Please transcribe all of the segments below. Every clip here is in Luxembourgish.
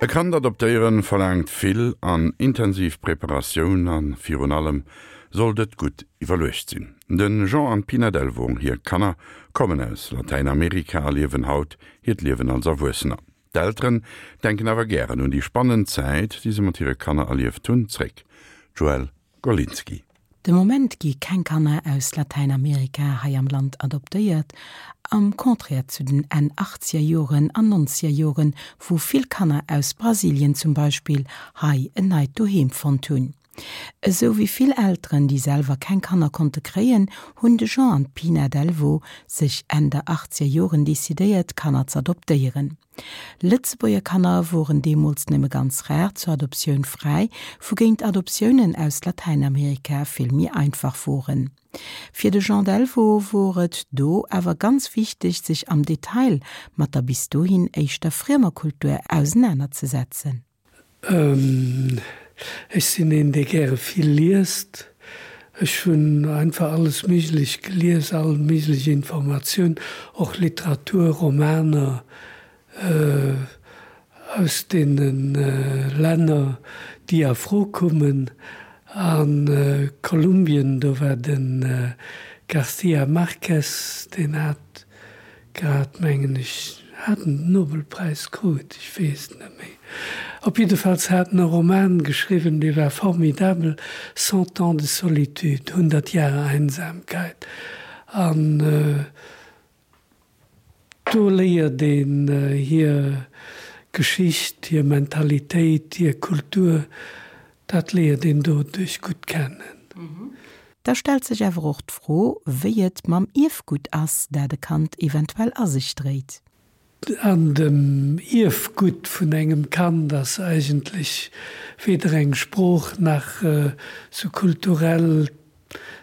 E Kand adoptéieren verlaangt vill an intensiv Preparatioun a virun allem sollt et gutt iwwerluecht sinn. De Jean an d'Pina Delvaux, hir Kanner kommen aus Latäinamerika a liewen haut hiert Liewen als Erwuessener. D'Elteren denken awer gären un déi spannend Zäit, déi se mat hire Kanner erlieft hunn, zréck. Joëlle Golinski. De Moment gi keng Kanner aus Latäinamerika hei am Land adoptéiert, am Contraire zu den Enn achtzeger Joren an nonzeger Joren, wou vill Kanner aus Brasilien zum Beispill hei en neit Doheem fonnt hunn. Esou wéi vill Elteren, déi selwer keng Kanner konnte kréien, hunn de Jean an d'Pina Delvaux sech Enn der achtzeger Joren decidéiert, Kanner z'adoptéieren. Lëtzebuerger Kanner woren deemools nëmme ganz rar zur Adoptioun fräi, wougéint Adoptiounen aus Latäinamerika vill méi einfach woren. Fir de Jean Delvaux wor et do awer ganz wichteg, sech am Detail mat der bis dohin éischter friemer Kultur ausenanerzesetzen. Ech sinn een, dee gäre vill liest. Ech hunn einfach alles Méiglech gelies, all méiglech Informatioun, och Literatur, Romaner aus deene Länner, déi a Fro kummen. A Kolumbien, do war de García Márquez, deen hat Grad, mengen ech, hat en den Nobelpräis krut, ech weess et net méi. Op jiddefalls hat en e Roman geschriwwen, dee war formidabel, Cent ans de solitude, Hundert Jahre Einsamkeit. An do léiert een hir Geschicht, hir Mentalitéit, hir Kultur, dat léiert een doduerch gutt kennen. Da stellt sech awer och d'Fro, wéi et mam Ierfgutt ass, dat e Kand eventuell a sech dréit. An dem Ierfgutt vun engem Kand ass eigentlech weder eng Sprooch nach sou kulturell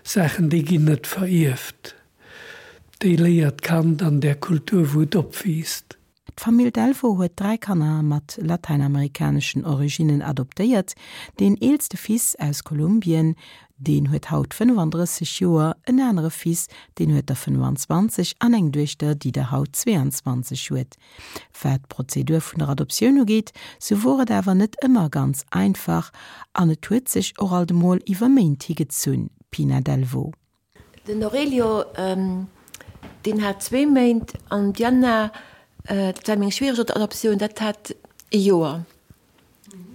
Saachen, déi ginn net verierft. Déi léiert d'Kand an där Kultur, wou et opwiisst. D'Famill Delvaux huet 3 Kanner mat latäinamerikaneschen Originnen adoptéiert. Deen eelste Fils aus Kolumbien, deen huet haut 35 Joer, en anere Fils, deen huet der 25 an eng Duechter, déi der haut 22 huet. Wat d'Prozedur vun der Adoptioun ugeet, sou wor et awer net ëmmer ganz einfach an et huet sech och alt emol iwwer Méint higezunn. Pina Delvaux. Den Aurelio, deen hat zwee Méint an d'Diana, dat war meng schwiereg Adoptioun, dat hat ee Joer.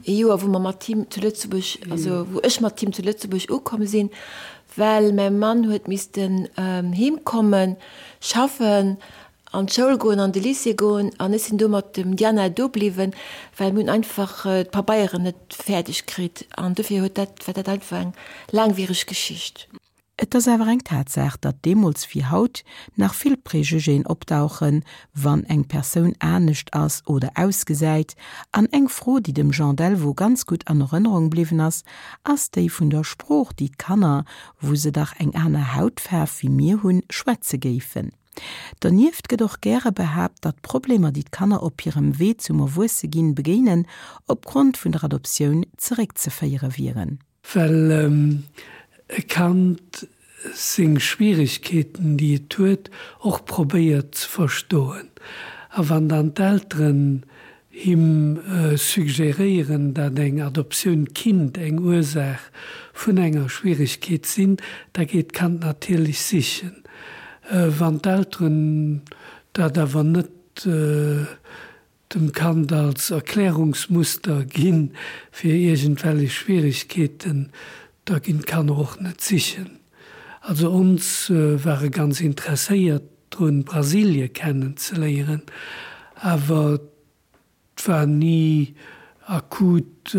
Ee Joer, wou mer mat him zu Lëtzebuerg, also wou ech mat him zu Lëtzebuerg ukomm sinn, well mäi Mann huet missten heem kommen, schaffen, an d'Schoul goen, an de Lycée goen an ech sinn do mat dem Diana do bliwwen, well mir hunn einfach d'Pabeieren net fäerdeg kritt an dofir huet dat, war dat einfach eng laangwiereg Geschicht. Et ass awer eng Tatsaach, datt deemools wéi haut nach vill Préjugéen opdauchen, wann eng Persoun anescht ass oder ausgesäit. An eng Fro, déi dem Jean Delvaux ganz gutt an Erënnerung bliwwen ass, ass déi vun der Sprooch, déi d'Kanner, wou se dach eng aner Hautfaarf wéi mir hunn, schwätze géifen. Donieft gëtt och gäre behaapt, datt d'Problemer, déi d'Kanner op hirem Wee zum Erwuesseginn begéinen, opgrond vun der Adoptioun zeréckzeféiere wieren. Well e Kand seng Schwieregkeeten, déi et huet, och probéiert ze verstoen. A wann dann d'Elteren him suggeréieren, dat eng Adoptioun kinnt eng Ursaach vun enger Schwieregkeet sinn, da geet d'Kand natierlech sichen. Wann d'Elteren dat awer net dem Kand als Erklärungsmuster ginn fir iergendwellech Schwieregkeeten, da ginn d'Kanner och net sichen. Also ons ware ganz interesséiert drun Brasilie kennen ze léieren, awer 't war ni akut,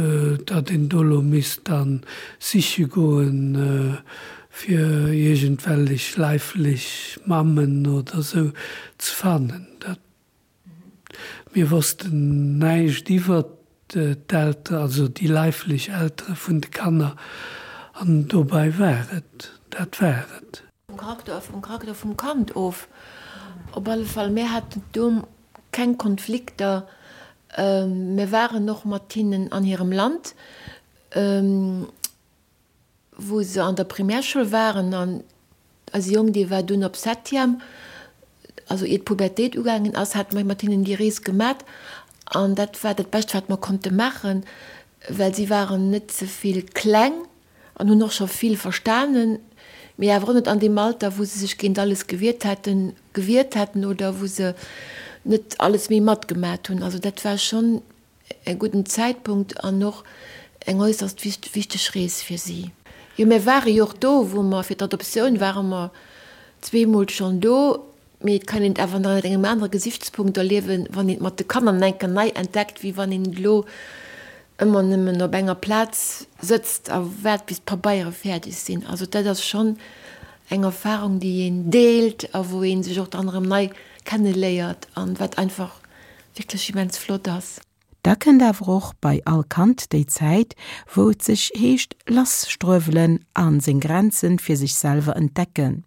datt een do lo misst dann siche goen fir iergendwellech leiflech Mammen oder sou ze fannen. Dat Mir wossten näischt iwwert d'Eltere, also déi leiflech Eltere vun de Kanner, an dobei war et, dat war et. Vum Charakter, vum Charakter vum Kand of. Op alle Fall, mir haten do keng Konflikter. Mir waren och mat hinnen an hirem Land. Wou se an der Primärschoul waren an eise Jong, dee war dunn op Septième, also ier d'Pubertéit ugaangen ass, hate mer mat hinnen déi Rees gemat. An dat war dat Bescht, wat mer konnte maachen, well si waren net ze vill kleng an hunn och scho vill verstanen, mee awer och net an deem Alter, wou se sech géint alles gewiert hätten, gewiert hätten oder wou se net alles méi matgemat hunn. Also dat war schonn e gudden Zäitpunkt an och eng äusserst wichteg Rees fir si. Jo, mir ware jo och do, wou mer fir d'Adoptioun ware mer zweemol schonn do. Mee et kann een et awer nach ënnert engem anere Gesichtspunkt erliewen, wann een et mat de Kanner nach eng Kéier nei entdeckt, wéi wann een et elo ëmmer nëmmen op enger Plaz sëtzt a waart, bis d'Pabeiere fäerdeg sinn. Also dat ass schonn eng Erfarung, déi een deelt a wou ee sech och dann erëm nei kenneléiert an wat einfach wierklech immens flott ass. Da kënnt awer och bei all Kand déi Zäit, wou et sech heescht lasstruewelen a seng Grenzen fir sech selwer entdecken.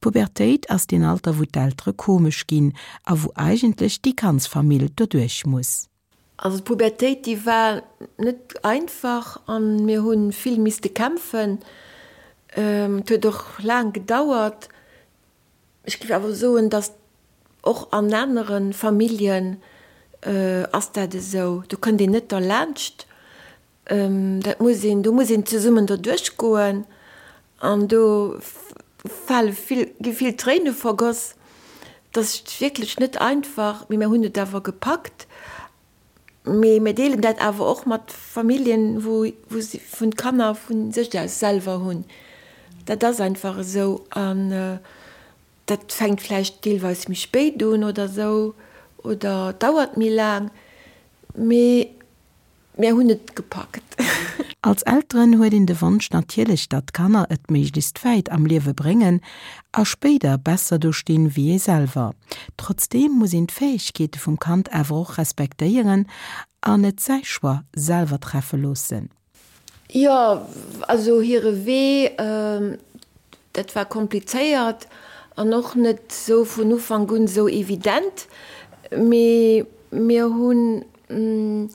D'Pubertéit ass deen Alter, wou d'Eltere komesch ginn a wou eigentlech déi ganz Famill doduerch muss. Also d'Pubertéit, déi war net einfach a mir hu vill misste kämpfen. Et huet och laang gedauert. Ech géif awer soen, datt och an anere Familljen ass dat esou. Do kënnt een net derlaanscht. Dat muss een, do muss een zesummen derduerch goen an do fale vill, gi vill Tréine vergoss. Dat ass wierklech net einfach, mee mir hunn et awer gepackt. Mee mir deelen dat awer och mat Familljen, wou wou si vun d'Kanner vu sech aus selwer hunn. Dat ass einfach esou an dat fänkt vläicht deelweis méi spéit un oder esou oder dauert méi laang, mee Mir hunn et gepackt. Als Elteren huet een de Wonsch natierlech, datt d'Kanner et méiglechst wäit am Liewe bréngen a spéider besser do stinn wéi ee selwer. Trotzdeem muss een d'Fäegkeete vum Kand awer och respektéieren an et säi Choix selwer treffe loossen. Jo, also hire Wee, dat war komplizéiert an och net sou vun Ufank un sou evident, mee mir hunn hunn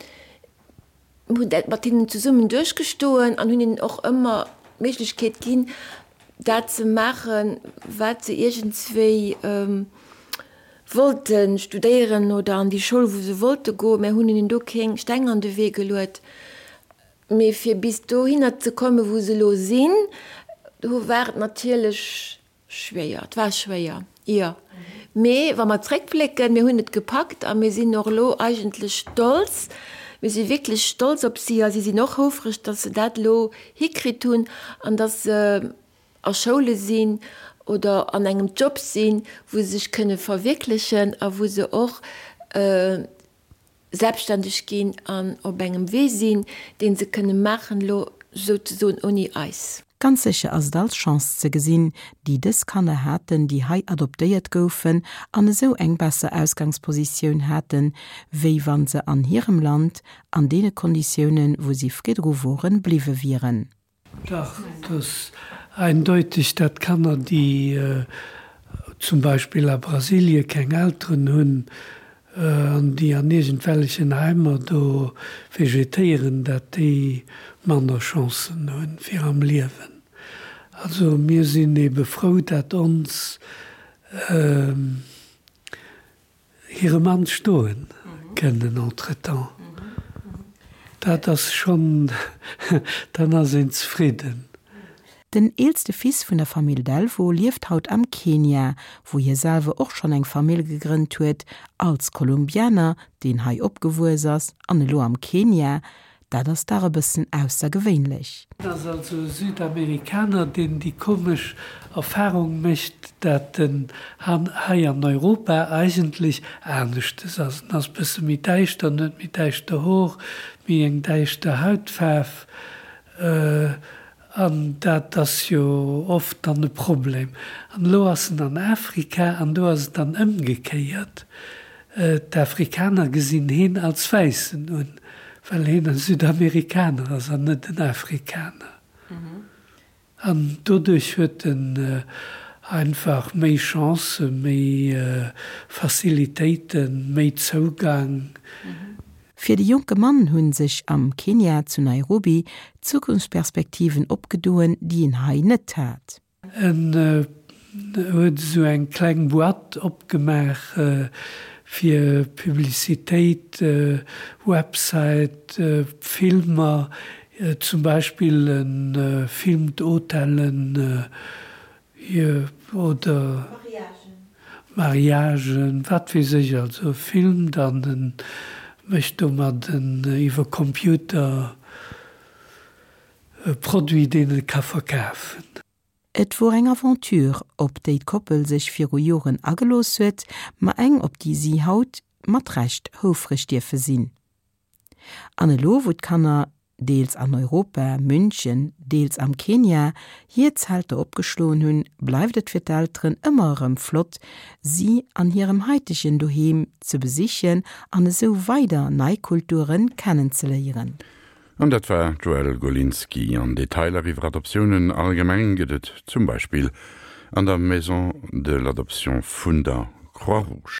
dat mat hinnen zesummen duerchgestoen an hunn hinnen och ëmmer d'Méiglechkeet ginn, dat ze maachen, wat se iergendswéi wollte studéieren oder an déi Schoul, wou se wollte goen. Mir hunn hinnen do keng Steng an de Wee geluet. Mee fir bis dohinner ze kommen, wou se elo sinn, do war et natierlech Schwéier, et war schwéier, jo. Mee wa mer zréckblécken, mir hunn et gepackt a mir sinn och elo eigentlech stolz. Mir si wierklech stolz op si a si sinn och houfreg, datt se dat elo hikritt hunn an datt se a Schoule sinn oder an engem Job sinn, wou se sech kënne verwierklechen a wou se och selbstständeg ginn an op engem Wee sinn, dee se kënne maachen elo souzesoen ouni eis. Ganz sécher ass et als Chance ze gesinn, déi dës Kanner haten, déi hei adoptéiert goufen an esou eng besser Ausgangspositioun haten, wéi wa se an hirem Land an deene Konditiounen, wou si vridru woren, bliwwe wieren. Dach, et ass eindeutig, dat Kanner, déi zum Beispill a Brasilie keng Elteren hunn an déi an iergendwellechen Heimer do vegetéieren, dat déi manner Chancen hunn fir am Liewen. Also mir sinn ebe frou, dat ons Hire Mann stoen kënnen entretemps. Dat ass schonn, dann ass een zefridden. Den eelste Fils vun der Famill Delvaux lieft haut am Kenia, wou hie selwer och schonn eng Famill gegrënnt huet, als Kolumbianer, deen hei opgewuess ass an elo am Kenia, Dat ass dach e bëssen aussergewéinlech. En ass also e Südamerikaner, deen déi komesch Erfahrung mécht, dat en hei an Europa eigentlech aneschtes ass. En ass bësse méi däischter, en huet méi däischter Hor, méi eng däischter Hautfaarf. An dat ass jo oft dann e Problem. An elo ass en an Afrika an do ass et dann ëmgekéiert. D'Afrikaner gesinn heen als Wäissen un, well heen e Südamerikaner ass an net en Afrikaner. An doduerch huet en einfach méi Chancen, méi Facilitéiten, méi Zougang. Fir de jonke Mann hu sech am Kenia zu Nairobi Zukunftsperspektiven opgedoen, déi en hei net hat. En huet esou eng kleng Boîte opgemaach. Fir Publicitéit, Website, Filmer, zum Beispill e Film d'Hotellen oder Mariagen, wat weess ech, also e filmt an e mécht domat en iwwer Computer e Produit, deen e ka verkafen. Et wor eng Aventure, op déi d'Koppel sech viru Joren agelooss huet, ma eng, op déi si haut mat Recht houfreg dierfe sinn. An elo, wou d'Kanner, deels an Europa, München, deels am Kenia, hir Zelter opgeschloen hunn, bleift et fir d'Elteren ëmmer erëm flott, si an hirem haitegen Doheem ze besichen an esou weider nei Kulture kennenzeléieren. An dat war d'Joëlle Golinski. An Detailer iwwer Adoptiounen allgemeng gëtt et zum Beispill an der Maison de l'Adoption vun der Croix-Rouge.